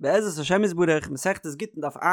בעזרת השם יתברך, מסכת גיטין דף ע',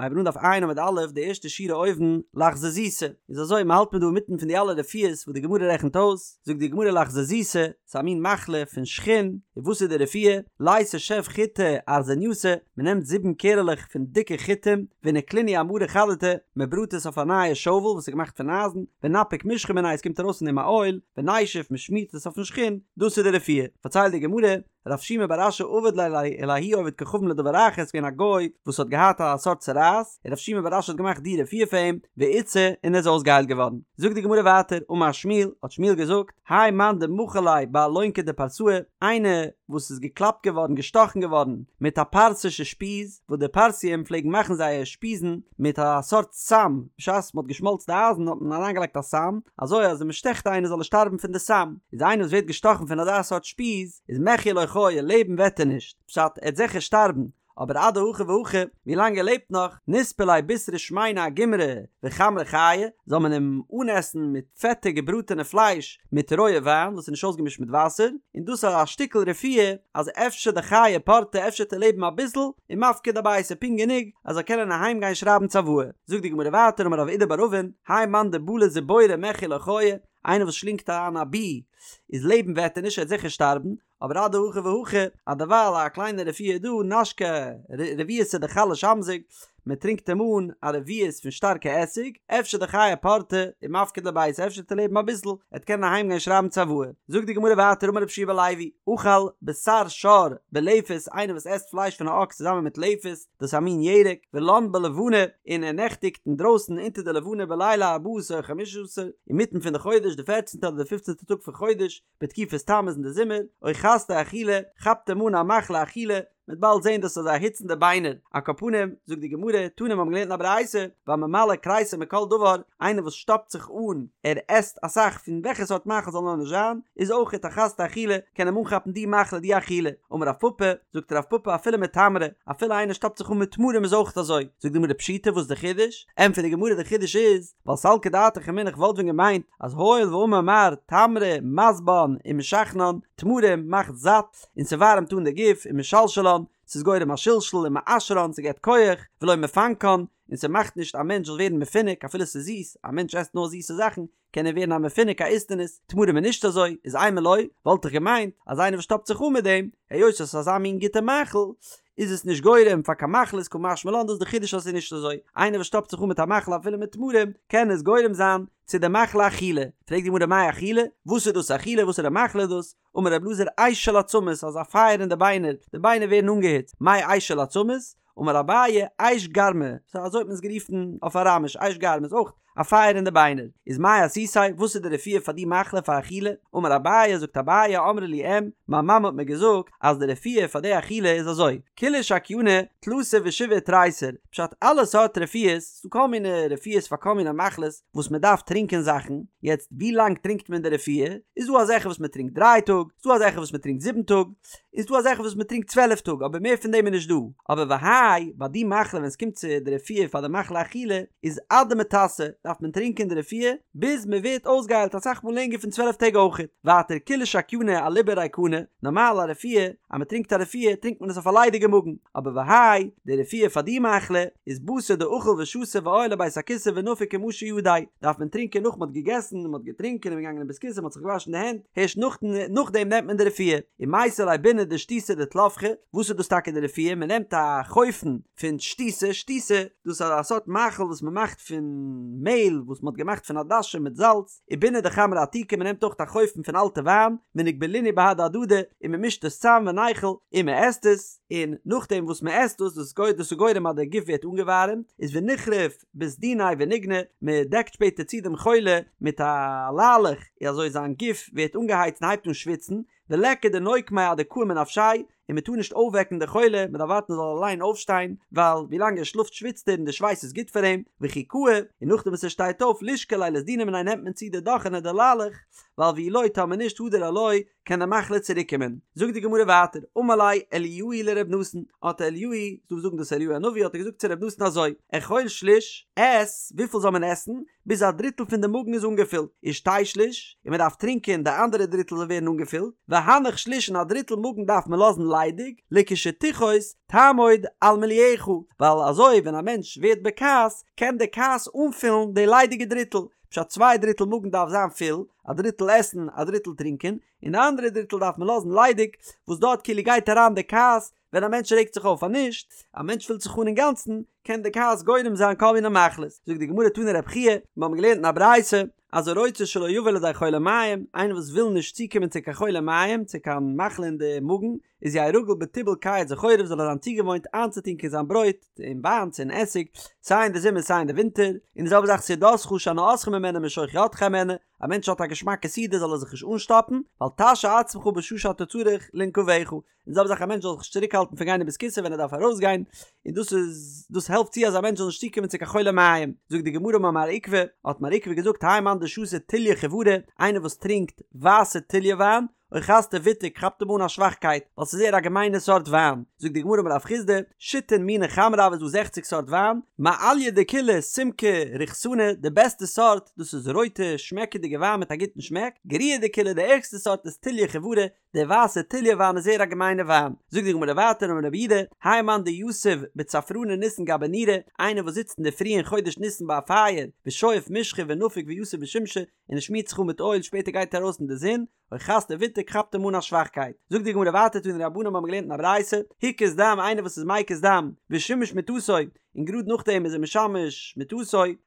הייבן אן דף ע' עמוד א', די ערשטע שורה אויבן, לחזזיתא, איז אזוי, מען האלט מיר דא אינמיטן פון די אלע רפואות וואס די גמרא רעכנט אויס, זאגט די גמרא לחזזיתא, ס'איז א מין מחלה פון שחין, און וואס איז די רפואה? ליתי שב חיטי ארזנייתא, מען נעמט זיבן קערעלעך פון דיקע חיטים, ונקלינהו אמרא חדתא, מען בראט עס אויף א נייע שאוול וואס איז געמאכט פון אייזן, ונפיק משחא מיניה עס קומט ארויס פון דעם א אויל, ונישוף מען שמירט עס אויפן שחין, דאס איז די רפואה. פארציילט די גמרא, רב שימי בר אשי עבד ליה לההוא עובד כוכבים לדבר אחר, ס'איז געווען א גוי וואס האט געהאט א סארט צרעת, און רב שימי בר אשי האט געמאכט די רפואה פאר אים, ואיתסי, און ער איז אויסגעהיילט געווארן. זאגט די גמרא ווייטער, אמר שמואל, האט שמואל געזאגט, האי מאן דמחו ליה באלונכא דפרסאי, איינער וואס איז געקלאפט געווארן, געשטאכן געווארן, מיט א פרסישע שפיז, וואס די פרסים פלעגן מאכן זייער שפיזן מיט א סארט סם, בשעת מען האט געשמאלצט די אייזן האט מען אריינגעלייגט א סם, אזוי אז ווען מען שטעכט איינער זאל ער שטארבן פון די סם, איז איינער וואס ווערט געשטאכן פון אזא סארט שפיז, איז מחיה לא חיי, לעבן וועט ער נישט, פשט, ער וועט זיכער שטארבן, אבער אדהכי והכי, ווי לאנג ער לעבט נאך, נספי ליה בישרא שמינא אגומרי וחמרא חייא, זאל מען אים אנעסן מיט פעטע געבראטענע פלייש מיט רויע וויין וואס איז נישט אויסגעמישט מיט וואסער, און דאס איז א שטיקל רפואה אז אפשר דחיי פורתא אפשר וועט ער לעבן אביסל, ומפקיד אביתיה פונקט גענוג אז ער זאל קענען אהיים גיין שרייבן צוואה. זאגט די גמרא ווייטער אמר רב אידי בר אבין, האי מאן דבלע זיבורא מחיה לא חיי, איינער וואס שלינגט אריין א בי איז לעבן וועט ער נישט ער וועט זיכער שטארבן, אבער אדהכי והכי, אז דערווייל א קליינע רפואה איז דא, נשקיה רביעתא דחלא שמזיג, מען טרינקט אים אן א רביעית פון שטארקע עסיג, אפשר דחיי פורתא ומפקיד לביתיה, אפשר וועט ער לעבן אביסל, ער וועט קענען אהיים גיין שרייבן צוואה. זאגט די גמרא ווייטער אמר רבי יהושע בן לוי, אכל בשר שור בלפת, איינער וואס עסט פלייש פון א אקס צוזאמען מיט לפת, דאס איז א מין ירק, ולן בלבנה, און ער נעכטיגט אינדרויסן אונטער די לבנה בליל ארבעה עשר או חמשה עשר, אינמיטן פון די חודש, די פערצנטע אדער די פופצנטע טאג פון חודש, בתקופת תמוז אין די זומער, אוחזתו אכילה, כאפט אים אן א מחלה אכילה, מ'וועט באלד זען דאס איז אזא היץ אין די ביינער, על כל פנים, זאגט די גמרא, תנא מיר האבן געלערנט אין א ברייתא, והממלא כריסו מכל דבר, איינער וואס שטאפט זיך אן, ער עסט אסאך פון וועלכע סארט מאכל זאל נאר נישט זיין, איז אויכעט אחזתו אכילה, קען אים אנכאפן די מחלה די אכילה, אמר רב פפא, זאגט רב פפא אפילו מתמרי, אפילו איינער שטאפט זיך אן מיט תמרים איז אויכעט אזוי, זאגט די גמרא פשיטא וואס איז די חידוש? ענטפערט די גמרא די חידוש איז, ווייל סלקא דעתך אמינא איך וואלט ווען געמיינט אז הואיל ואמר מר תמרי משבען ומשחנן, תמרים מאכט זאט און ס'ווארעמט אן די גוף ומשלשלן, ס'איז גורם א שלשול ומעשרן ס'געבט כח, ולא מפנקן, און ס'מאכט נישט א מענטש זאל ווערן מפונק אפילו ס'איז זיס, א מענטש עסט נאר זיסע זאכן קען ער ווערן א מפונק א איסטניס, תמרים איז נישט אזוי, איז אימא לא, וואלט איך געמיינט אז איינער וואס שטאפט זיך אן מיט דעם, היות עס איז אזא מין גוטע מאכל, איז עס נישט גורם פאר קיין מחלות קא משמע לן דאס איז די חידוש אז עס איז נישט אזוי, איינער וואס שטאפט זיך אן מיט א מאכל אפילו מיט תמרים, קען עס גורם זיין צו די מחלה אכילה, פרעגט די גמרא מאי אכילה, וואס איז דאס אכילה וואסערע מחלה איז דאס, אמר רב אלעזר אש של עצמות אזא פייער אין די ביינער, די ביינער ווערן אנגעהיצט, מאי אש של עצמות, אמר אביי אש גרמא, סא אזוי האט מען עס גערופן אויף אראמיש, אש גרמא איז אויך א פייער אין די ביינער, איז מאי אסותיה, וואס איז די רפואה פאר די מחלה פאר אכילה, אמר אביי, זאגט אביי, אמרה לי אם, מיין מאמע האט מיר געזאגט אז די רפואה פאר די אכילה איז אזוי, כולהו שקייני, תלתא ושבעה ותריסר, פשט אלע סארט רפואות, ס'דא כל מיני רפואות פאר כל מיני מחלות וואס מען דארף טרינקען זאכן, יעצט ווי לאנג טרינקט מען די רפואה, איז דא אזעלכע וואס מען טרינקט דריי טאג, ס'דא אזעלכע וואס מען טרינקט זיבן טאג, איז דא אזעלכע וואס מען טרינקט 12 טאג אבער מער פון דעם איז נישט דא, אבער והאי ביי די מחלה ווען עס קומט צו די רפואה פאר די מחלה אכילה איז עד דמיתסי דארף מען טרינקען די רפואה ביז מען ווערט אויסגעהיילט אסאך מאל לענגער פון 12 טעג אויכעט, ווייטער כולהו שקייני אליבא ריקנא, נארמאל א רפואה אז מען טרינקט א רפואה טרינקט מען עס אויף א ליידיגע מאגן, אבער והאי די רפואה פאר די מחלה איז בתר דאכיל ושתי ועייל לבית הכסא ונפיק ומשי ידיה, דארף מען טרינקען נאך מען האט געגעסן און מען האט געטרינקען און מען געגאנגען אין בית הכסא מען האט זיך געוואשן די הענט, הערשט נאכדעם נעמט מען די רפואה, ומייתי ליה ביני דשתיתא דטלפחי, וואס איז דאס טאקע די רפואה, מען נעמט א חופן פון שתיתא, שתיתא, דאס איז א סארט מאכל וואס מען מאכט פון מעהל וואס מען האט געמאכט פון עדשים מיט זאלץ, וביני דחמרא עתיקא, מען נעמט אויך א חופן פון אלטע וויין, ונגבלינהו בהדי הדדי, און מען מישט עס צאם וניכול, און מען עסט עס, און נאכדעם וואס מען עסט דאס, דאס איז גורם אז דער גוף ווערט אנגעווארעמט, איז ונכרוף בסדיניה וניגני, מען דעקט שפעטער צו דעם חולה מיט א ליילעך, און אזוי זיין גוף ווערט אנגעהייצט און הייבט אן שוויצן, וליכא דנוקמיה עד דקאים מנפשיה, און מען טאר נישט אויפוועקן די חולה, מען דארף ווארטן ער זאל אליין אויפשטיין, ווייל ווי לאנג ער שלאפט שוויצט ער און די שווייס איז גוט פאר אים, וכי קאי, און נאכדעם וואס ער שטייט אויף לישקליה לסדינא מיניה נעמט מען צו די דאכענע די ליילעך, ווייל ואי לא טאמער נישט הדר עילויה קען די מחלה צוריק קומען. זאגט די גמרא ווייטער, אמר ליה אליהו לר' נתן, האט אליהו, ס'דא וואס זאגן דאס אליהו הנביא האט ער געזאגט צו ר' נתן אזוי, אכול שליש, עס, וויפיל זאל מען עסן, ביז א דריטל פון די מאגן איז אנגעפילט, ושתה שליש, און מען דארף טרינקען די אנדערע דריטל זאל ווערן אנגעפילט, והנח שליש און א דריטל מאגן דארף מען לאזן ליידיג, לכשתכעוס תעמוד על מילואך, ווייל אזוי ווען א מענטש ווערט בכעס קען די כעס אנפילן די ליידיגע דריטל, פשט צוויי דריטל מאגן דארף זיין פול, א דריטל עסן א דריטל טרינקען, און די אנדערע דריטל דארף מען לאזן ליידיג, וואס דארט כאילו גייט אריין די כעס, ווען א מענטש רעגט זיך אויף אז נישט, א מענטש פילט זיך אן אינגאנצן, קען די כעס גורם זיין כל מיני מחלות. זאגט די גמרא תני רב חייא, מיר האבן געלערנט אין א ברייתא, אז הרוצה שלא יבא לידי חולי מעיים, איינער וואס וויל נישט צוקומען צו קיין חולי מעיים, צו קיין מחלה אין די מאגן, איז יהא רגיל בטיבול קיץ וחורף זאל ער זיין צוגעוואוינט איינצוטונקען זיין ברויט אין וויין צו אין עסיג, סיי אין די זומער סיי אין די ווינטער, און די זעלבע זאך סעודתך שהנאתך ממנה משוך ידך הימנה, א מענטש האט א געשמאקע סעודה זאל ער זיך נישט אנשטאפן, ואל תשהה עצמך בשעה שאתה צריך לנקביך, און די זעלבע זאך א מענטש זאל זיך נישט צוריקהאלטן פון גיין אין בית כסא ווען ער דארף ארויסגיין, און דאס איז דאס העלפט צו אז א מענטש זאל נישט צוקומען צו קיין חולי מעיים. זאגט די גמרא אמר מר עוקבא, האט מר עוקבא געזאגט האי מאן דשתי טוליא חיורא, איינער וואס טרינקט ווייסע טוליא וויין, אוחזתיה ביטוק כאפט אים אן א שוואכקייט, ווייל ס'איז זייער א געמיינע סארט וויין. זאגט די גמרא אמר רב חסדא, שיתין מיני חמרא הוו, איז דא זעכציג סארט וויין, מעליא דכולהו סומקא ריחתנא, די בעסטע סארט, דאס איז רויטע שמעקעדיגע וויין מיט א גוטן שמעק, גריעא דכולהו די ערגסטע סארט איז טוליא חיורא, די ווייסע טוליא וויין איז זייער א געמיינע וויין. זאגט די גמרא ווייטער אמר רב יהודה, האי מאן דיתיב בצפרני ניסן גבי נורא, איינער וואס זיצט אינדערפרי אין חודש ניסן ביי א פייער, ושואף משחא ונפיק ויתיב בשמשא, און ער שמירט זיך אן מיט אויל שפעטער גייט ער ארויס אין די זון, אוחזתיה ביטוק כאפט אים אן א שוואכקייט. זאגט די גמרא ווייטער תנו רבנן מיר האבן געלערנט אין א ברייתא, הקיז דם איינער וואס איז מקיז דם, ושימש מטתו, און גראד נאכדעם איז ער משמש מטתו,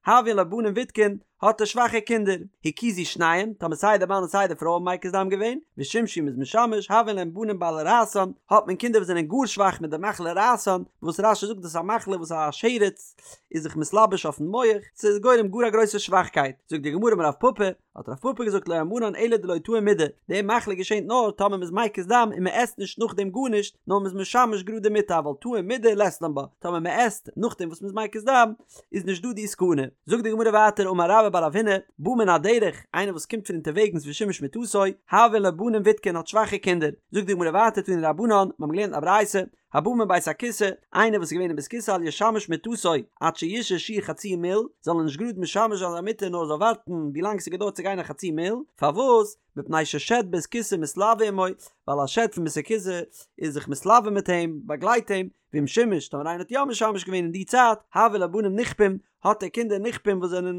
הויין לו בנים ויתקין, האט ער שוואכע קינדער, הקיזו שניהם, טאמער סיי די מאן און סיי די פרוי האבן מקיז דם געווען, ושימשו מ'איז משמש, הויין להם בנים בעלי רעתן, האט מען קינדער וואס זענען גאר שוואך מיט די מחלה רעתן, וואס רש"י זאגט דאס איז א מחלה וואס א שרץ איז זיך מתלבש אויפן מח, ס'איז גורם גאר א גרויסע שוואכקייט, זאגט די גמרא אמר רב פפא, האט רב פפא געזאגט לא אמרן אלא דלא טעים מידי, די מחלה געשענט נאר טאמער מ'איז מקיז דם און מ'עסט נישט נאכדעם גארנישט, נאר מ'איז משמש גראד די מיטה אבל טעים מידי לית לן בה, טאמער מ'עסט נאכדעם וואס מ'איז מקיז דם איז נישט דא די סכנה. זאגט די גמרא ווייטער אמר רבה בר רב הונא, בא מן הדרך, איינער וואס קומט פון אונטערוועגנס ושימש מטתו, הויין לו בנים ויתקין האט שוואכע קינדער, זאגט די גמרא ווייטער תנו רבנן, מ'האבן געלערנט א ברייתא, הבא מבית הכסא, איינער וואס איז געווען אין בית כסא אל ישמש מטתו עד שישהה שיעור חצי מיל, זאל ער נישט גראד משמש זיין זיין מיטה נאר זאל ווארטן ווי לאנג ס'געדויערט צו גיין א חצי מיל, פארוואס? מפני ששד בית כסא מתלוה עמו, ווייל א שד פון בית הכסא איז זיך מתלוה מיט אים, באגלייט אים, ואם שימש, טאמער איינער האט יא משמש געווען אין די צייט, הויין לו בנים נכפים, האט ער קינדער נכפים וואס זענען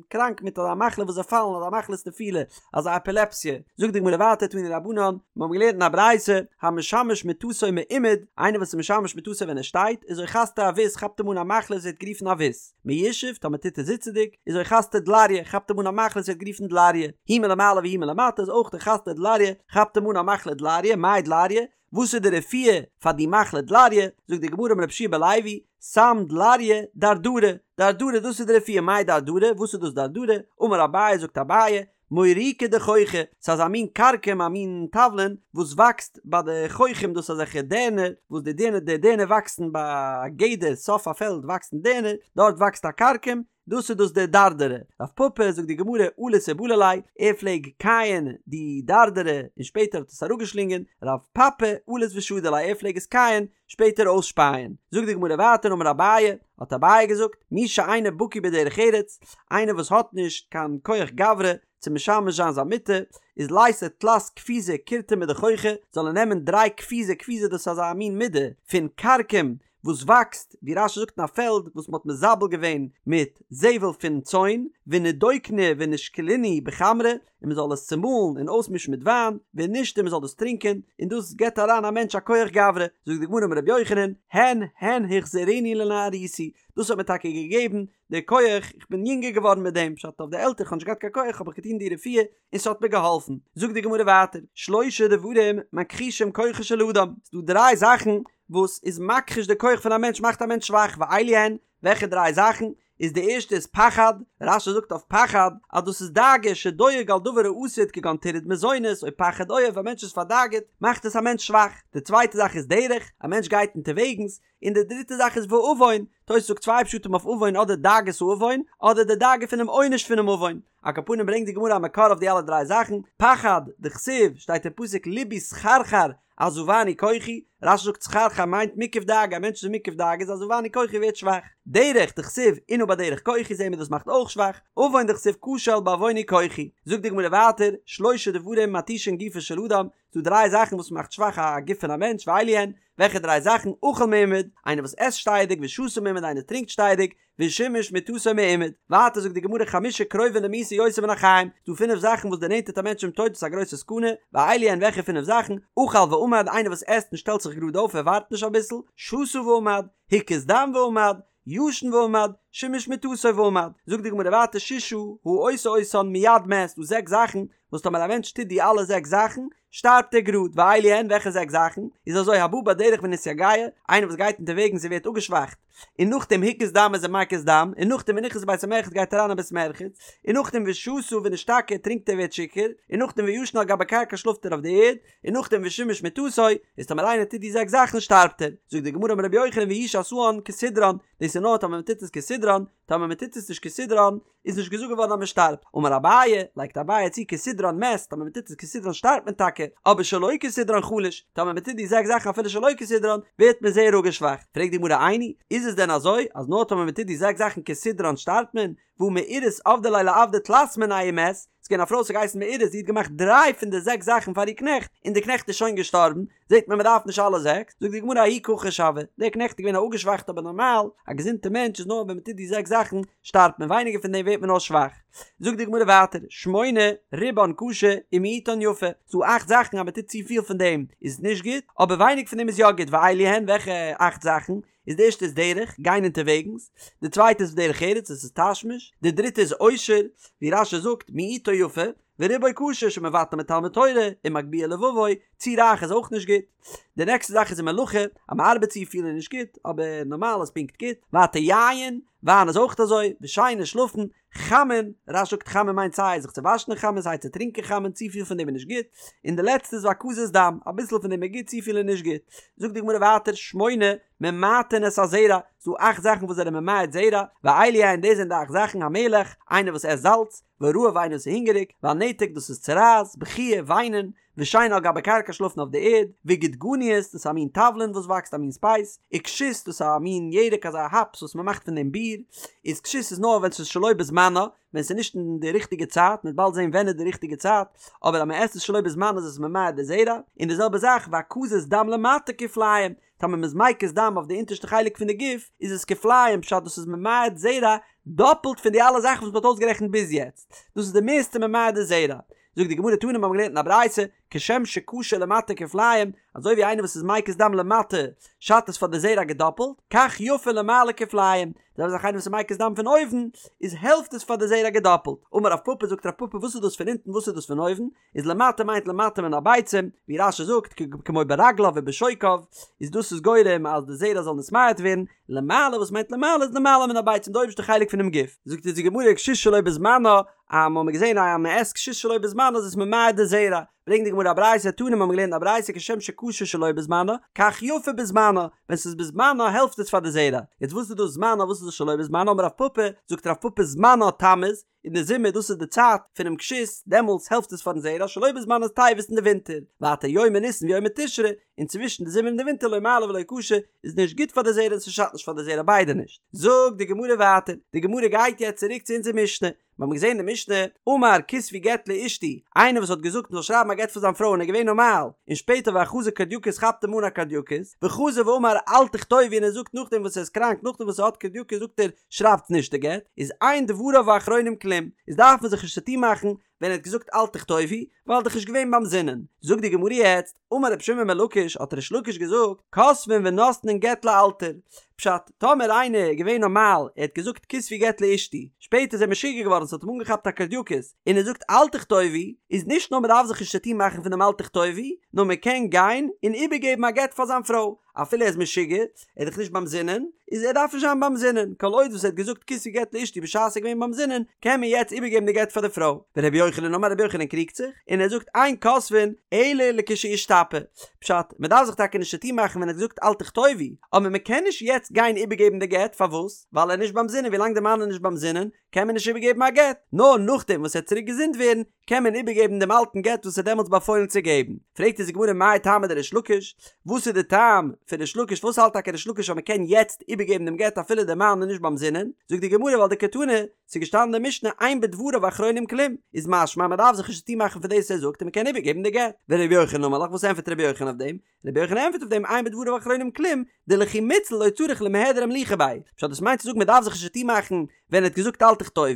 קראנק מיט אזא מחלה וואס זיי פאלן אזא מחלת נפילה אזא עפילעפסיע זאגט די גמרא ווייטער תנו רבנן מיר האבן געלערנט אין א ברייתא המשמש מטתו מעומד איינער וואס איז משמש מטתו ווען ער שטייט איז אוחזתו עבות כאפט אים אן א מחלה וואס ווערט גערופן עבות מיושב טאמער טוט ער זיצעדיג איז אוחזתו דלריא כאפט אים אן א מחלה וואס ווערט גערופן דלריא הוא מלמעלה והוא מלמטה איז אויך אוחזתו דלריא כאפט אים אן א מחלה דלריא מאי דלריא וואס איז די רפואה פאר די מחלה דלריא? זאגט די גמרא אמר רבי יהושע בן לוי, סם דלריא דרדרא, דרדרא דאס איז די רפואה, מאי דרדרא, וואס איז דאס דרדרא? אמר אביי זאגט אביי, מוריקא דחוכא, ס'איז אזא מין כרכום א מין תבלין וואס וואקסט ביי די חוחים דאס איז אזעלכע דערנער וואס די דערנער די דערנער וואקסן ביי א גדר סוף א פעלד וואקסן דערנער דארט וואקסט א כרכום דאס איז דאס דער דרדרא. רב פפא זאגט די גמרא אליס ובלע ליה, ער פלעג קייען די דרדרא און שפעטער האט עס אראפגעשלינגען, רב פפי אליס ושדי ליה ער פלעג עס קייען שפעטער אויסשפייען. זאגט די גמרא ווייטער אמר אביי, האט אביי געזאגט, מי שאינו בקי בדרך ארץ, איינער וואס האט נישט קיין כח גברא צו משמש זיין זיין מיטה, איז לייתי תלת קפיזי קורטמא דחוכא, זאל ער נעמען דריי קפיזי, קפיזא דאס איז אזא מין מידה פון כרכום וואס וואקסט, ווי רש"י זאגט אין א פעלד וואס מ'האט מזבל געווען מיט זבל פון צאן, ונידוקנהו ונישקלינהו בחמרא, און מ'זאל עס צומאלן און אויסמישן מיט וויין, ונישתי מ'זאל דאס טרינקען, און דאס געבט אריין א מענטש א כח גברא, זאגט די גמרא אמר רבי יוחנן, הן הן החזירוני לנערותי, דאס האט מיר טאקע געגעבן די כח, איך בין יונגער געווארן מיט דעם, פשט אויף די עלטער, איך האב נישט געהאט קיין כח האב איך געטון די רפואה, און ס'האט מיר געהאלפן. זאגט די גמרא ווייטער, שלשה דברים מכחישים כוחו של אדם, ס'דא דריי זאכן וואס איז מכחיש די כח פון א מענטש, מאכט א מענטש שוואך, ואלו הן, וועלכע דריי זאכן? איז די ערשטע איז פחד, רש"י זאגט אויף פחד אז דאס איז דאגה שדואג על דבר העתיד כגון טירוד מזונות או פחד אויב, א מענטש איז פארדאגה'ט מאכט עס א מענטש שוואך, די צווייטע זאך איז דרך, א מענטש גייט אונטערוועגנס, און די דריטע זאך איז ועוון, תוס' זאגט צוויי פשטים אויף עוון אדער דאגת העוון אדער די דאגה פונעם עונש פונעם עוון, על כל פנים ברענגט די גמרא א מקור אויף די אלע דריי זאכן, פחד, דכתיב, שטייט אין פסוק לבי סחרחר עזבני כוחי, רש"י זאגט סחרחר מיינט מוקף דאגה, א מענטש איז מוקף דאגה איז עזבני כוחי ווערט שוואך, דרך, דכתיב, אנה בדרך כוחי זעהן מיר דאס מאכט אויך שוואך, עוון דכתיב כשל בעווני כוחי. זאגט די גמרא ווייטער, שלשה דברים מתישין גופו של אדם, ס'דא דריי זאכן וואס מאכט שוואך א גוף פון א מענטש, ואלו הן, וועלכע דריי זאכן, אכל מעומד, איינער וואס עסט שטייעדיג, ושתה מעומד, איינער טרינקט שטייעדיג, ושימש מטתו מעומד. ווייטער זאגט די גמרא חמשה קרובין למיתה יותר מן החיים, ס'דא פינף זאכן וואס דערנענטערט א מענטש צום טויט דאס איז א גרויסע סכנה, ואלו הן וועלכע פינף זאכן, אכל ועמד, איינער וואס עסט און שטעלט זיך גראד אויף ער ווארט נישט אביסל, שתה ועמד, הקיז דם ועמד, ישן ועמד, שימש מטתו ועמד. זאגט די גמרא ווייטער ששה העושה אותן מיד מת, ס'דא זעקס זאכן וואס טאמער א מענטש טוט די אלע זעקס זאכן, שטארבט ער גראד, ואלו הן וועלכע זעקס זאכן? איז אזוי הבא בדרך ונתייגע, איינער וואס גייט אונטערוועגנס און ווערט אפגעשוואכט, און נאכדעם הקיז דם איז ער מקיז דם, און נאכדעם ונכנס לבית המרחץ גייט אריין אין בית מרחץ, און נאכדעם ושתה ונשתכר טרינקט ער ווערט שיכור, און נאכדעם וישן על גבי קרקע שלאפט ער אויף די ערד, און נאכדעם ושימש מטתו, איז טאמער איינער טוט די זעקס זאכן שטארבט ער. זאגט די גמרא אמר רבי יוחנן והוא שעשאן כסדרן, דאס איז נאר טאמער מען טוט עס כסדרן, טאמער מען טוט עס נישט כסדרן, איז נישט געזאגט געווארן אז מען שטארבט. אמר אביי, לייגט אביי צו כסדרן מת, טאמער מען טוט עס כסדרן שטארבט מען טאקע, אבער שלא כסדרן חלש, טאמער מען טוט די זעקס זאכן אפילו שלא כסדרן, ווערט מען זייער אפגעשוואכט. פרעגט די גמרא איני, איז עס דען אזוי, אז נאר טאמער מען טוט די זעקס זאכן כסדרן שטארבט מען? והא מעורת עבדה ליה לעבדה תלת מינייהו ומת, ס'איז געווען א פרוי וואס האט געהייסן מעורת זי האט געמאכט דריי פון די זעקס זאכן פאר איר קנעכט, און די קנעכט איז שוין געשטארבן, זעט מען מ'דארף נישט אלע זעקס, זאגט די גמרא ההוא כחוש הוה, דער קנעכט איז געווען א אפגעשוואכטע אבער נארמאל, א געזונטע מענטש איז נאר ווען מ'טוט די זעקס זאכן שטארבט מען ווייניגער פון דעם ווערט מען נאר שוואך. זאגט די גמרא ווייטער, שמונה רובן קשה ומיעוטן יפה, ס'דא אכט זאכן אז מ'טוט צופיל פון דעם איז נישט גוט, אבער ווייניג פון דעם איז יא גוט, ואלו הן וועלכע אכט זאכן? איז די ערשטע איז דרך, גיין אונטערוועגנס, די צווייטע איז דרך ארץ, דאס איז תשמיש, די דריטע איז עושר, ווי רש"י זאגט, מיעוטו יפה, ורובו קשה שמבטל מתלמוד תורה, ומגביה לבבו, צו רייך איז אויך נישט גוט. די נעקסטע זאך איז ומלאכה, אז מען ארבעט צו פיל איז נישט גוט, אבער נארמאל איז פונקט גוט, ווייטער יין, וויין איז אויך אזוי, ושינה שלאפן, חמין, רש"י זאגט חמין מיינט סיי זיך צו וואשן אין חמין סיי צו טרינקען חמין, צופיל פון דעם איז נישט גוט, און די לעצטע איז והקזת דם, אביסל פון דעם איז גוט צופיל איז נישט גוט. זאגט די גמרא ווייטער שמונה ממעטין את הזרע, ס'דא אכט זאכן וואס זענען ממעט זרע, ואלו הן דאס זענען די אכט זאכן המלח, איינער וואס עסט זאלץ, והרעב איינער וואס איז הונגעריג, והנתק דאס איז צרעת, בכיה, וויינען, ושינה על גבי קרקע שלאפן אויף די ערד, וגודגדניות דאס איז א מין תבלין וואס וואקסט א מין ספייס, וכשות דאס איז א מין ירק אזא האפס וואס מען מאכט פון דעם ביר, איז כשות איז נאר ווען ס'איז שלא בזמנה, ווען ס'איז נישט אין די ריכטיגע צייט, מ'וועט באלד זען ווען איז די ריכטיגע צייט, אבער אז מען עסט עס שלא בזמנה איז עס ממעט די זרע, און די זעלבע זאך והקזת דם למטה כפליים, טאמער מ'איז מקיז דם אויף די אונטערשטע חלק פון די גוף איז עס כפליים פשט דאס איז ממעט זרע דאפלט פון די אלע זאכן וואס מ'האט אויסגערעכנט ביז יעצט, דאס איז די מערסטע ממעט די זרע. זאגט די גמרא תנא מיר האבן געלערנט אין א ברייתא, כשם שקשה למטה כפליים, אזוי ווי איינער וואס איז מקיז דם למטה שאדט עס פאר די זרע געדאפלט, כך יפה למעלה כפליים, די זעלבע זאך איינער וואס איז מקיז דם פון אויבן, איז העלפט עס פאר די זרע געדאפלט. אמר רב פפא זאגט רב פפא וואס איז דאס פון אונטן וואס איז דאס פון אויבן, איז למטה מיינט למטה מן הביצים, ווי רש"י זאגט כמו ברגליו ובשוקיו, איז דאס איז גורם אז די זרע זאל נתמעט ווערן, למעלה וואס מיינט למעלה איז למעלה מן הביצים די אויבערשטע חלק פונעם גוף. זאגט אונז די גמרא כשות שלא בזמנה, אז מ'האמיר געזען אז מ'עסט כשות שלא בזמנה איז עס ממעט די זרע, ברענגט די גמרא א ברייתא, תנא מ'האמיר געלערנט א ברייתא כשם שקשה שלא בזמנה, כך יפה בזמנה, ווען ס'איז בזמנה העלפט עס פאר די זרע, יעצט וואס איז דאס זמנה וואס איז דאס שלא בזמנה, אמר רב פפא, זאגט רב פפא זמנה תמוז, אין די זומער דאס איז די צייט פונעם כשות, דעמאלטס העלפט עס פארן זרע, שלא בזמנה איז טבת אין די ווינטער, ווייטער יומי ניסן ויומי תשרי, און צווישן די זומער און די ווינטער לא מעלי ולא קשי, איז נישט גוט פאר די זרע און ס'שאדט נישט פאר די זרע ביידע נישט. זאגט די גמרא ווייטער, די גמרא גייט יעצט צוריק צו אונזער משנה, מיר האבן געזען אין די משנה, אמר כתבו גט לאשתי, איינער וואס האט געזאגט מ'זאל שרייבן א גט פאר זיין פרוי און ער איז געווען נארמאל, און שפעטער ואחזו קורדייקוס כאפט אים אן א קורדייקוס, וחזר ואמר אל תכתבו און ער זאגט נאכדעם וואס ער איז קראנק נאכדעם וואס ער האט קורדייקוס זאגט ער שרייבטס נישט די גט, איז אין דבריו האחרונים כלום, איז דארף מען זיך נישט צוטון מאכן ווען ער האט געזאגט אל תכתבו, ווייל ער איז דאך נישט געווען ביים זינען. זאגט די גמרא יעצט, אמר רבי שמעון בן לקיש, האט ריש לקיש געזאגט, כותבין ונותנין גט לאלתר. פשט, טאמער איינער איז געווען נארמאל, ער האט געזאגט כתבו גט לאשתי, שפעטער איז ער משוגע געווארן ס'האט אים אנגעכאפט א קרדיאקוס, און ער זאגט אל תכתובו, איז נישט נאר מ'דארף זיך נישט צוטון מאכן פון דעם אל תכתובו, נאר מ'קען גיין און איבערגעבן א גט פאר זיין פרוי, אפילו ער איז משוגע, ער איז דאך נישט ביים זינען, איז ער דארף נישט זיין ביים זינען, כל עוד וואס ער האט געזאגט כתבו גט לאשתי בשעת ער איז געווען ביים זינען, קען מען יעצט איבערגעבן די גט פאר די פרוי. ורבי יוחנן אמר רבי יוחנן קריגט זיך, און ער זאגט אין כותבין אלא לכשישתפה, פשט, מען דארף זיך טאקע נישט צוטון מאכן ווען ער האט געזאגט אל תכתובו, אבער מען קען נישט יעצט גיין איבערגעבן די גט, פארוואס? ווייל ער איז נישט ביים זינען, ווילאנג די מאן איז נישט ביים זינען, קען מען נישט איבערגעבן א גט, נאר נאכדעם וואס ער וועט צוריק געזונט ווערן, קען מען איבערגעבן דעם אלטן גט וואס ער האט דעמאלטס באפוילן צו געבן. פרעגט אונז די גמרא מאי טעמא דריש לקיש, וואס איז די טעם פון ריש לקיש, פארוואס האלט טאקע ריש לקיש אז מען קען יעצט איבערגעבן דעם גט אפילו דער מאן איז נישט ביים זינען, זאגט די גמרא ווייל דקתני, ס'איז געשטאנען אין די משנה אין בדבריו אחרונים כלום, איז משמע אז מען דארף זיך נישט צוטון מאכן פון דאס ער זאגט און מען קען איבערגעבן די גט. ורבי יוחנן אמר לך, וואס ענטפערט רבי יוחנן אויף דעם? רבי יוחנן ענטפערט אויף דעם אין בדבריו אחרונים כלום, דלכי מיתציל לא צריך למיהדר אמליכא ביה, פשט דאס מיינט צו זאגן מען דארף זיך נישט צוטון מאכן ווען ער האט געזאגט אל תכתובו,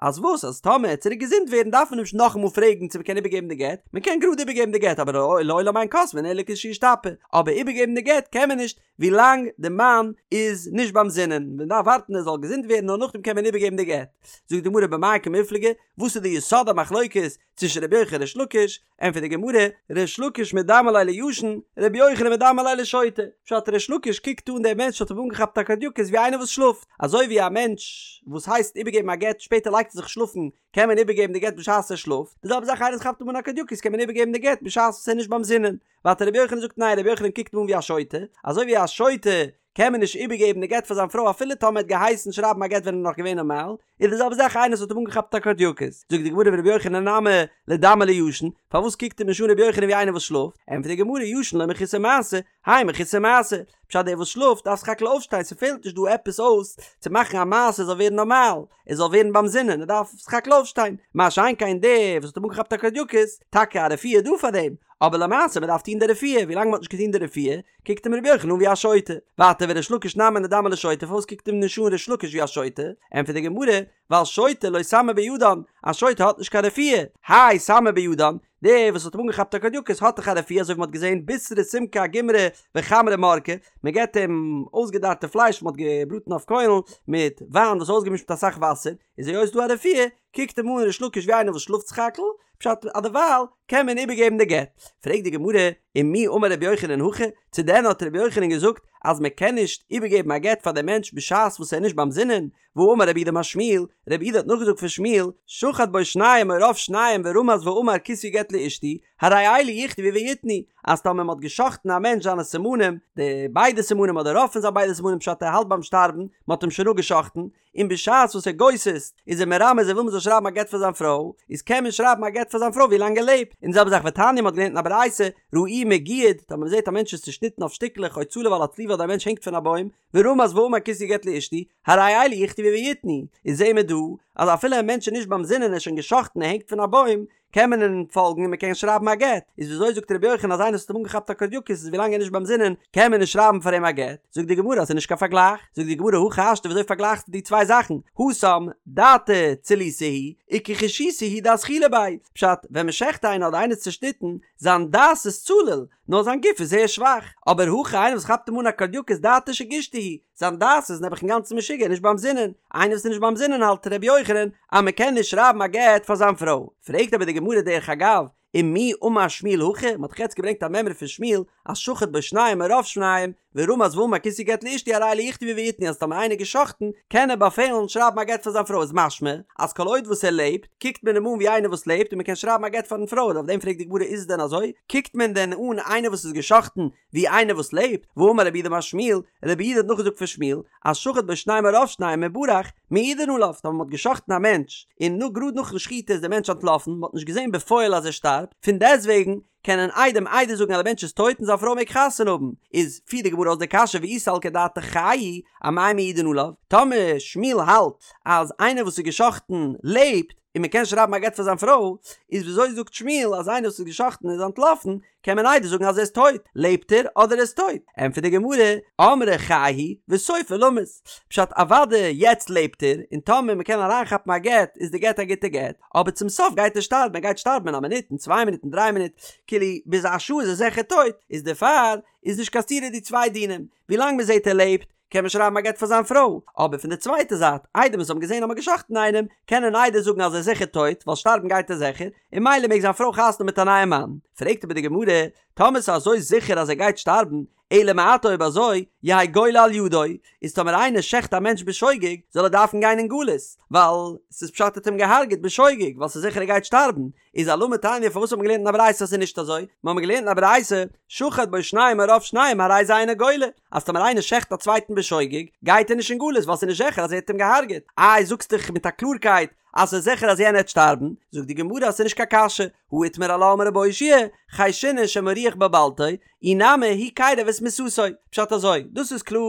אז וואס אז טאמער ער וועט צוריק געזונט ווערן דארף מען נישט נאכאמאל פרעגן צו מען קען איבערגעבן די גט, מען קען גראד איבערגעבן די גט אבער לעולם אין כותבין אלא לכשישתפה, אבער איבערגעבן די גט קען מען נישט ווילאנג די מאן איז נישט ביים זינען, מען דארף ווארטן ער זאל געזונט ווערן נאר נאכדעם קען מען איבערגעבן די גט. זאגט די גמרא במאי קמיפלגי, וואס איז די יסוד המחלוקת צווישן רבי יוחנן און ריש לקיש, ענטפערט די גמרא, ריש לקיש מדמי ליה לישן, רבי יוחנן מדמי ליה לשוטה, פשט ריש לקיש קוקט אן דער מענטש האט אים אנגעכאפט א קרדיאקוס ווי איינער וואס שלאפט, אזוי ווי א מענטש וואס הייסט איבערגעבן א גט שפעטער לייגט ער זיך שלאפן קען מען איבערגעבן די גט בשעת ער שלאפט, די זעלבע זאך איינער וואס כאפט אים אן א קרדיאקוס קען מען איבערגעבן די גט בשעת וואס ער איז נישט ביים זינען, ווייטער רבי יוחנן זאגט ניין רבי יוחנן קוקט אים אן ווי א שוטה, אזוי ווי א שוטה קען מען נישט איבערגעבן די גט פאר זיין פרוי אפילו טאמער ער האט געהייסן שרייבן א גט ווען ער איז נאך געווען נארמאל, איז די זעלבע זאך איינער וואס האט אים אנגעכאפט א קרדיאקוס, זאגט די גמרא ורבי יוחנן נמי לידמיה לישן, פארוואס קוקט אים נישט אן רבי יוחנן ווי איינער וואס שלאפט, ענטפערט די גמרא ישן לא מחוסר מעשה, האי מחוסר מעשה, פשט דער וואס שלאפט דארף סך הכל אויפשטיין ס'פעלט נישט דא עפעס אויס צו מאכן א מעשה ער זאל ווערן נארמאל, ער זאל ווערן ביים זינען, ער דארף סך הכל אויפשטיין, מה שאין כן דער וואס האט אים אנגעכאפט א קרדיאקוס, טאקע א רפואה איז דא פאר דעם, אבער למעשה מען דארף טון די רפואה, ווילאנג מען האט נישט געטון די רפואה, קוקט אים רבי יוחנן אן ווי א שוטה. ווייטער וריש לקיש נמי לידמיה לשוטה, פארוואס קוקט אים נישט אן ריש לקיש ווי א שוטה? ענטפערט די גמרא, ווייל שוטה לא סמא בידן, א שוטה האט נישט קיין רפואה, האי סמא בידן, דער וואס האט אים אנגעכאפט א קרדיאקוס האט דאך א רפואה אזוי ווי מען האט געזען בישרא סומקא אגומרי וחמרא מרקא, מען געבט אים אויסגעדארטע פלייש וואס מען האט געבראטן אויף קוילן מיט וויין וואס איז אויסגעמישט מיט אסאך וואסער, איז היות ס'דא א רפואה, קוקט אים אן ריש לקיש ווי איינער וואס שלאפט סך הכל, פשט אז דערווייל קען מען איבערגעבן די גט. פרעגט די גמרא, ומי אמר רבי יוחנן הכי, צו דען האט רבי יוחנן געזאגט אז מען קען נישט איבערגעבן א גט פאר דעם מענטש בשעת וואס ער איז נישט ביים זינען, והאמר רב יהודה אמר שמואל, רב יהודה האט נאכגעזאגט פון שמואל, שחט בו שניים או רוב שניים ורמז ואמר כתבו גט לאשתי, הרי אלו יכתבו ויתנו, אז טאמער מען האט גע'שחט'ן א מענטש זיינע סימנים, די ביידע סימנים אדער רוב פון זיין ביידע סימנים פשט ער האלט ביים שטארבן, מען האט אים שוין אפגע'שחט'ן, און בשעת וואס ער גוסס'ט איז ער מרמז ער וויל מען זאל שרייבן א גט פאר זיין פרוי, איז קען מען שרייבן א גט פאר זיין פרוי ווי לאנג ער לעבט, און די זעלבע זאך ותניא מען האט געלערנט אין א ברייתא, ראוהו מגויד, טאמער מען זעט א מענטש איז צושניטן אויף שטיקלעך או צלוב על הצליבה אדער א מענטש הענגט פון א בוים, ורמז ואמר כתבו גט לאשתי, הרי אלו יכתבו ויתנו, איז זעהן מיר דא אז אפילו א מענטש איז נישט ביים זינען ער איז שוין גע'שחט'ן ער הענגט פון א בוים, קען מען אים פאלגן און מען קען שרייבן א גט, איז וויאזוי זאגט רבי יוחנן אז איינער וואס האט אים אנגעכאפט א קרדיאקוס איז ווילאנג ער איז נישט ביים זינען קען מען נישט שרייבן פאר אים א גט, זאגט די גמרא אז ס'איז נישט קיין פארגלייך, זאגט די גמרא הכי השתא וויאזוי פארגלייכסטו די צוויי זאכן, התם דעתיה צילותא היא וכחושיתא הוא דאזחילא ביה, פשט, ווען מען שעכט איינער אדער איינער איז צושניטן, זיין דעת איז צלול, נאר זיין גוף איז זייער שוואך, אבער הכא איינער וואס כאפט אים אן א קרדיאקוס דעתיה שגישתא היא, זיין דעת איז נעבעך אינגאנצן משוגע נישט ביים זינען, איינער וואס איז נישט ביים זינען האלט ר' יוחנן אז מען קען נישט שרייבן א גט פאר זיין פרוי, פרעגט אבער די גמרא דרך אגב, ומי אמר שמואל הכי, מען האט דאך יעצט געברענגט א מימרא פון שמואל אז שחט בו שניים או רוב שניים, ורמז ואמר כתבו גט לאשתי הרי אלו יכתבו ויתנו אז טאמער איינער געשחטן קען ער באפעלן שרייבן א גט פאר זיין פרוי איז משמע אז כל עוד וואס ער לעבט קוקט מען אים אן ווי איינער וואס לעבט און מען קען שרייבן א גט פארן פרוי און אויף דעם פרעגט די גמרא איז עס דען אזוי קוקט מען דען אן איינער וואס איז געשחטן ווי איינער וואס לעבט והאמר רב יהודה אמר שמואל רב יהודה האט נאכגעזאגט פון שמואל אז שחט בו שניים או רוב שניים וברח מעידין עליו טאמער מען האט געשחטן א מענטש און נאר גראד נאכן שחיטה איז דער מענטש אנטלאפן מען האט נישט געזען בפועל אז ער שטארבט פון דעסטוועגן קענען עדים עדות זאגן אז דער מענטש איז טויט און זיין פרוי מעג חתונה האבן, איז פירט די גמרא אויס די קשיא ואי סלקא דעתך חי הוא, אמאי מעידין עליו, טאמער שמואל האלט אז איינער וואס איז גע'שחט'ן לעבט און מען קען שרייבן א גט פאר זיין פרוי, איז וויאזוי זאגט שמואל אז איינער וואס איז גע'שחט'ן איז אנטלאפן, קען מען עדות זאגן אז ער איז טויט, לעבט ער אדער ער איז טויט? ענטפערט די גמרא, אמרי חי הוא וסופו למות, פשט אוודאי יעצט לעבט ער, און טאמער מען קען אריינכאפן א גט איז די גט א גוטע גט, אבער צום סוף גייט ער שטארבן, ער גייט שטארבן אין א מינוט, אין צוויי מינוט, אין דריי מינוט, כאילו ביז א שעה איז ער זיכער טויט, איז דערפאר איז נישט קיין סתירה די צוויי דינים, ווילאנג מען זעט ער לעבט, קען מען שרייבן א גט פאר זיין פרוי, אבער פון די צווייטע זייט, עדים וואס האבן געזען אז מ'האט גע'שחט'ן איינעם, קענען עדות זאגן אז ער איז זיכער טויט, ווייל שטארבן גייט ער זיכער, און ממילא מעג זיין פרוי חתונה האבן מיט א נייעם מאן. פרעגט אבער די גמרא, טאמער ס'איז אזוי זיכער אז ער גייט שטארבן, אלא מעתה אויב אזוי, יהא גולה על ידו, איז טאמער איינער שעכט א מענטש בשוגג, זאל ער דארפן גיין אין גלות, ווייל ס'איז פשט ער האט אים געהארגעט בשוגג, ווייל ס'איז זיכער ער גייט שטארבן, איז אלמה תניא פארוואס האט מען געלערנט אין א ברייתא אז ס'איז נישט אזוי? מיר האבן געלערנט אין א ברייתא, שחט בו שניים או רוב שניים הרי זה אינו גולה, אז טאמער איינער שעכט א צווייטן בשוגג, גייט ער נישט אין גלות ווייל ס'איז נישט זיכער אז ער האט אים געהארגעט, איי זאגסט דאך מיט א קלארקייט אז ס'איז זיכער אז יענער העט שטארבן, זאגט די גמרא אז ס'איז נישט קיין קשיא, הא איתמר עלה אמר רבי אושעיא, חיישינן שמא רוח בלבלתו, אי נמי הוא קירב את מיתתו, פשט אזוי, דאס איז קלאר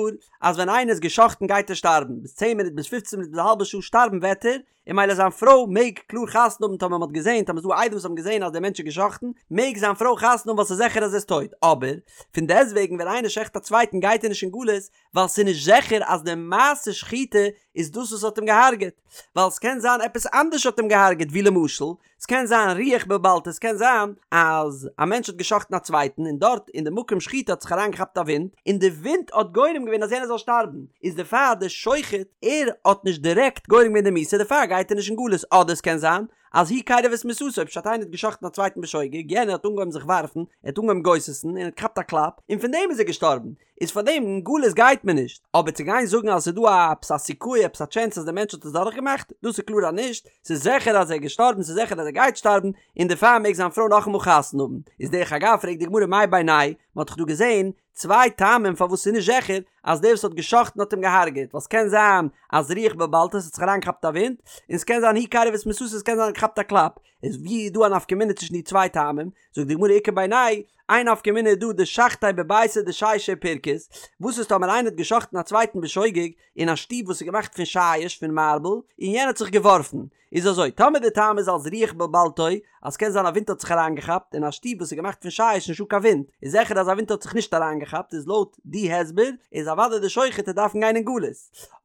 אז ווען איינער איז גע'שחט'ן גייט ער שטארבן, ביז צען מינוט ביז פופצן מינוט ביז א האלבע שעה שטארבן וועט ער, און ממילא זיין פרוי מעג קלאר חתונה האבן טאמער מ'האט געזען, טאמער ס'איז דא עדים וואס האבן געזען אז דער מענטש איז גע'שחט'ן, מעג זיין פרוי חתונה האבן ווייל ס'איז זיכער אז ער איז טויט, אבער, פון דעסטוועגן ווען איינער שעכט א צווייטן גייט ער נישט אין גלות, ווייל ס'איז נישט זיכער אז די מעשה שחיטה איז דאס וואס האט אים געהארגעט, ווייל ס'קען זיין עפעס אנדערש האט אים געהארגעט ווי למשל, ס'קען זיין רוח בלבלתו, ס'קען זיין אז א מענטש האט גע'שחט'ן א צווייטן און דארט אין די מקום שחיטה האט זיך אריינגעכאפט א ווינט און די ווינט האט גורם געווען אז יענער זאל שטארבן, איז דערפאר די שוחט ער האט נישט דירעקט גורם געווען די מיתה דערפאר גייט ער נישט אין גלות, אדער ס'קען זיין אז הוא קירב את מיתתו, פשט איינער האט גע'שחט'ן א צווייטן בשוגג, יענער האט אנגעהויבן זיך ווארפן, ער האט אנגעהויבן גוסס'ן און ער האט געכאפט א קלאפ און פון דעם איז ער געשטארבן, איז פאר דעם אין גלות גייט מען נישט, אבער צו גיין זאגן אז עס איז דא א עפעס א סיכוי עפעס א טשענס אז דער מענטש האט עס דורך געמאכט, דאס איז קלאר אז נישט, ס'איז זיכער אז ער איז געשטארבן ס'איז זיכער אז ער גייט שטארבן, און דערפאר מעג זיין פרוי נאכאמאל חתונה האבן, איז דרך אגב פרעגט די גמרא מאי בינייהו, מען האט דאך דא געזען צוויי טעמים פארוואס ס'איז נישט זיכער אז דער וואס האט גע'שחט'ן האט אים געהארגעט, ווייל ס'קען זיין אז רוח בלבלתו ס'האט זיך אריינגעכאפט א ווינט, און ס'קען זיין הוא קירב את מיתתו ס'קען זיין ער האט געכאפט א קלאפ, איז ווי איז דא א נפקא מינה צווישן די צוויי טעמים? זאגט די גמרא איכא בינייהו, איין נפקא מינה איז דא דשחטיה בביתא דשישא ופרכוס, וואס איז טאמער איינער האט גע'שחט'ן א צווייטן בשוגג אין א שטוב וואס איז געמאכט פון שיש פון מארבל, און יענער האט זיך געווארפן, איז אזוי, טאמער די טעם איז אלס רוח בלבלתו, אז ס'קען זיין א ווינט האט זיך אריינגעכאפט, אין א שטוב וואס איז געמאכט פון שיש נישטא קיין ווינט, איז זיכער אז א ווינט האט זיך נישט אריינגעכאפט, איז לויט די הסבר איז אוודאי די שוחט וועט דארפן גיין אין גלות.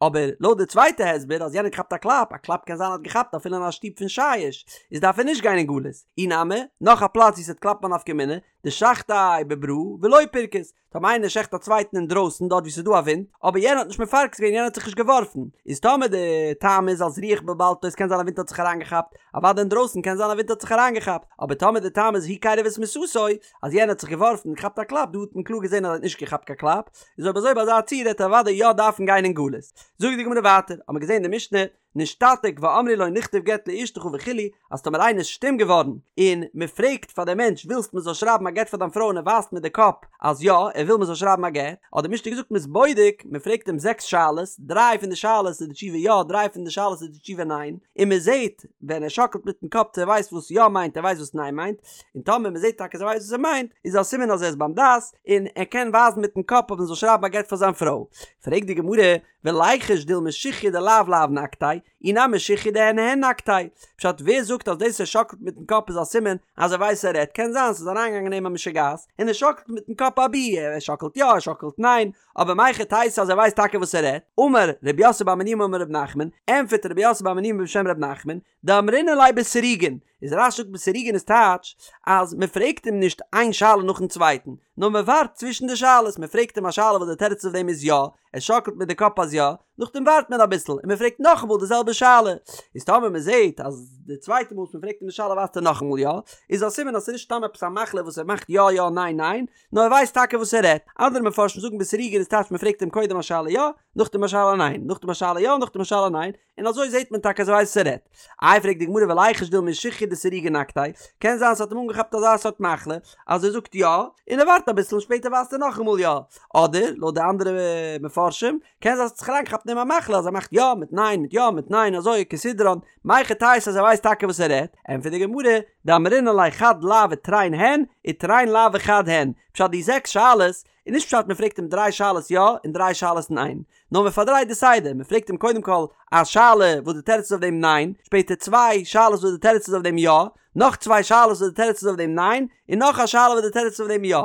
אבער לויט די צווייטע הסבר אז יענער האט געכאפט א קלאפ, א קלאפ קען זיין האט געכאפט אפילו אין א שטוב פון שיש, איז דארף ער נישט גיין אין גלות. אי נמי, נאך א פלאץ ווי ס'וועט קלאפן א נפקא מינה, דשחטיה בברא ולא פרכוס, טאמער איינער שעכט א צווייטן אינדרויסן דארט ווי ס'איז דא א ווינט, אבער יענער האט נישט מפרכס געווען יענער האט זיך נישט געווארפן, איז טאמער די טעם איז אלס רוח בלבלתו עס קען זיין א ווינט האט זיך אריינגעכאפט, אוודאי אינדרויסן קען זיין א ווינט האט זיך אריינגעכאפט, אבער טאמער די טעם איז הוא קירב את מיתתו, אז יענער האט זיך געווארפן און געכאפט א קלאפ, דא האט מען קלאר געזען אז ער האט נישט געכאפט קיין קלאפ, איז אויב אזוי ביי אזא ציור העט ער אוודאי יא דארפן גיין אין גלות. זאגט די גמרא ווייטער, האט מען געזען אין די משנה, נשתתק ואמרו לו נכתוב גט לאשתך וכו', אז טאמער איינער איז שטום געווארן, און מען פרעגט פאר דעם מענטש ווילסט מען זאל שרייבן א גט פאר דיין פרוי און ער ווייזט מיט די קאפ אז יא, ער וויל מען זאל שרייבן א גט, האט די משנה געזאגט מען איז בודק, מען פרעגט אים זעקס שאלות, דריי פון די שאלות איז די תשובה יא, דריי פון די שאלות איז די תשובה ניין, און מען זעט ווען ער שאקלט מיטן קאפ צו ער ווייסט וואס יא מיינט ער ווייסט וואס ניין מיינט, און טאמער מען זעט טאקע אז ער ווייסט וואס ער מיינט, איז א סימן אז ער איז ביים דעת, און ער קען ווייזן מיטן קאפ אז מען זאל שרייבן א גט פאר זיין פרוי. פרעגט די גמרא, וליחוש דילמא שכיא דלאו לאו נקטיה, אי נמי שכיא דהן הן נקטיה. פשט, ווער זאגט אז דאס ער שאקלט מיטן קאפ איז א סימן אז ער ווייסט ער רעדט, קען זיין ס'איז אריינגעגאנגען אין אים א משוגעת, און ער שאקלט מיטן קאפ אבי ער שאקלט יא ער שאקלט ניין, אבער מהיכי תיתי אז ער ווייסט טאקע וואס ער רעדט. אמר רב יוסף בר מניומי אמר רב נחמן, ענטפערט רב יוסף בר מניומי בשם רב נחמן, דאמרינן ליה בסירוגין, איז רש"י זאגט בסירוגין איז טייטש אז מען פרעגט אים נישט איין שאלה נאכן צווייטן, נאר מען ווארט צווישן די שאלות, מען פרעגט אים א שאלה וואס די תירוץ אויף דעם איז יא, ער שאקלט מיט די קאפ אז יא, נאכדעם ווארט מען אביסל און מען פרעגט נאכאמאל די זעלבע שאלה, איז טאמער מען זעט אז די צווייטע מאל וואס מען פרעגט אים די שאלה ווייזט ער נאכאמאל יא, איז א סימן אז ס'איז נישט סתם עפעס א מחלה וואס ער מאכט יא יא ניין ניין, נאר ער ווייסט טאקע וואס ער רעדט. אנדערע מפרשים זאגן בסירוגין איז טייטש מען פרעגט אים קודם א שאלה יא, נאכדעם א שאלה ניין, נאכדעם א שאלה יא, נאכדעם א שאלה ניין, און אזוי זעט מען טאקע אז ער ווייסט וואס ער רעדט. איי פרעגט די גמרא וליחוש דילמא שכיא דסירוגין נקטיה, קען זיין ס'האט אים אנגעכאפט אזא סארט מחלה אז ער זאגט יא, און ער ווארט אביסל און שפעטער ווייזט ער נאכאמאל יא. אדער, לויט די אנדערע מפרשים, קען זיין ס'האט זיך אריינגעכאפט אין אים א מחלה אז ער מאכט יא מיט ניין מיט יא מיט ניין אזוי כסדרן, מהיכי תיתי אז ער ווייסט טאקע וואס ער רעדט, ענטפערט די גמרא, דאמרינן ליה חד לאו ותרין הן, ותרין לאו וחד הן, פשט די זעקס שאלות איז נישט פשט מען פרעגט אים דריי שאלות יא און דריי שאלות ניין, נאר מען פארדרייט די סדר, מען פרעגט אים קודם כל א שאלה וואס די תירוץ איז אויף דעם ניין, שפעטער צוויי שאלות וואס די תירוץ איז אויף דעם יא, נאך צוויי שאלות וואס די תירוץ איז אויף דעם ניין, און נאך א שאלה וואס די תירוץ איז אויף דעם יא.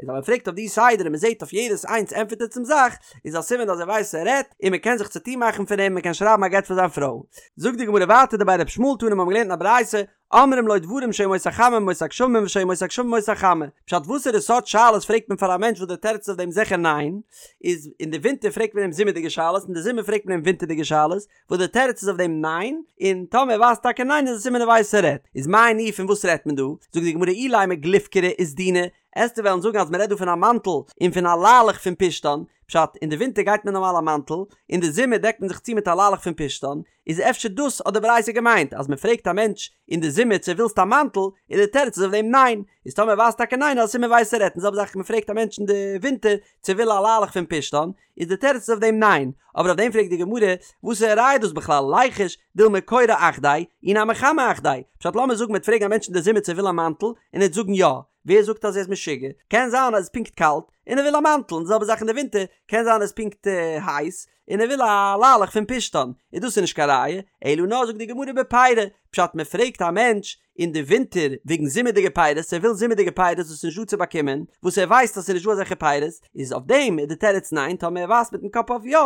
איז אז מען פרעגט אויף די סדר און מען זעט אויף יעדעס איינס ענטפערט ער צום זאך, איז א סימן אז ער ווייסט וואס ער רעדט, און מען קען זיך צוטון מאכן פון אים, מען קען שרייבן א גט פאר זיין פרוי. זאגט די גמרא ווייטער דבי ר' ישמעאל תנא מיר האבן געלערנט אין א ברייתא, אומרים לו דברים שהיו ימות החמה ימות הגשמים ושהיו ימות הגשמים ימות החמה. פשט וואסערע סארט שאלות פרעגט מען פאר א מענטש וואס די תירוץ איז אויף דעם זיכער ניין, איז אין די ווינטער פרעגט מען אים זומערדיגע שאלות אין די זומער פרעגט מען אים ווינטערדיגע שאלות, וואס די תירוץ איז אויף דעם ניין, און טאמער ער ווייזט טאקע ניין איז א סימן ער ווייסט וואס ער רעדט. איז מאי ניהו פון וואס רעדט מען דא? זאגט די גמרא אילימא גלופקרי וסדינא, עסטו וועלן זאגן אז מען רעדט דא פון א מאנטל און פון א ליילעך פון פשתן, פשט, אין די ווינטער גייט מען נארמאל א מאנטל, אין די זומער דעקט מען זיך צו מיט א ליילעך פון פשתן, איז אפשר דאס האט די ברייתא געמיינט אז מען פרעגט א מענטש אין די זומער צו ווילסט א מאנטל, און די תירוץ איז אויף דעם ניין, איז טאמער ער ווייזט טאקע ניין איז א סימן ווייסט ער רעדט, און זעלבע זאך מען פרעגט א מענטש אין די ווינטער צו וויל א ליילעך פון פשתן, איז די תירוץ איז אויף דעם ניין, אבער אויף דעם פרעגט די גמרא, וואסערע ראיה איז דאס בכלל, ליחוש, דילמא קורא אחדיה, אי נמי חמה אחדיה, פשט לאמיר זאגן מ'וועט פרעגן א מענטש אין די זומער צו ער וויל א מאנטל, און ער וועט זאגן יא, ווער זאגט אז ער איז משוגע, קען זיין אז עס איז פונקט קאלט, און ער וויל א מאנטל, און די זעלבע זאך אין די ווינטער, קען זיין עס איז פונקט הייס, און ער וויל א ליילעך פון פשתן, איז דאס איז נישט קיין ראיה, אלא נאר זאגט די גמרא בפירי, פשט מען פרעגט א מענטש אין די ווינטער וועגן זומערדיגע פירות, ער וויל זומערדיגע פירות וואס איז נישט דא צו באקומען, וואס ער ווייסט אז ס'איז נישט דא אזעלכע פירות, איז אויף דעם איז די תירוץ ניין, טאמער ער ווייזט מיטן קאפ אויף יא,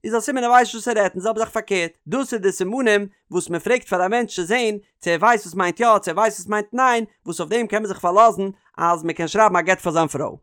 איז א סימן ער ווייסט נישט וואס ער רעדט, און זעלבע זאך פארקערט, דאס איז די סימנים וואס מען פרעגט פאר א מענטש צו זען צו ער ווייסט וואס מיינט יא צו ער ווייסט וואס מיינט ניין, וואס אויף דעם קען מען זיך פארלאזן אז מען קען שרייבן א גט פאר זיין פרוי.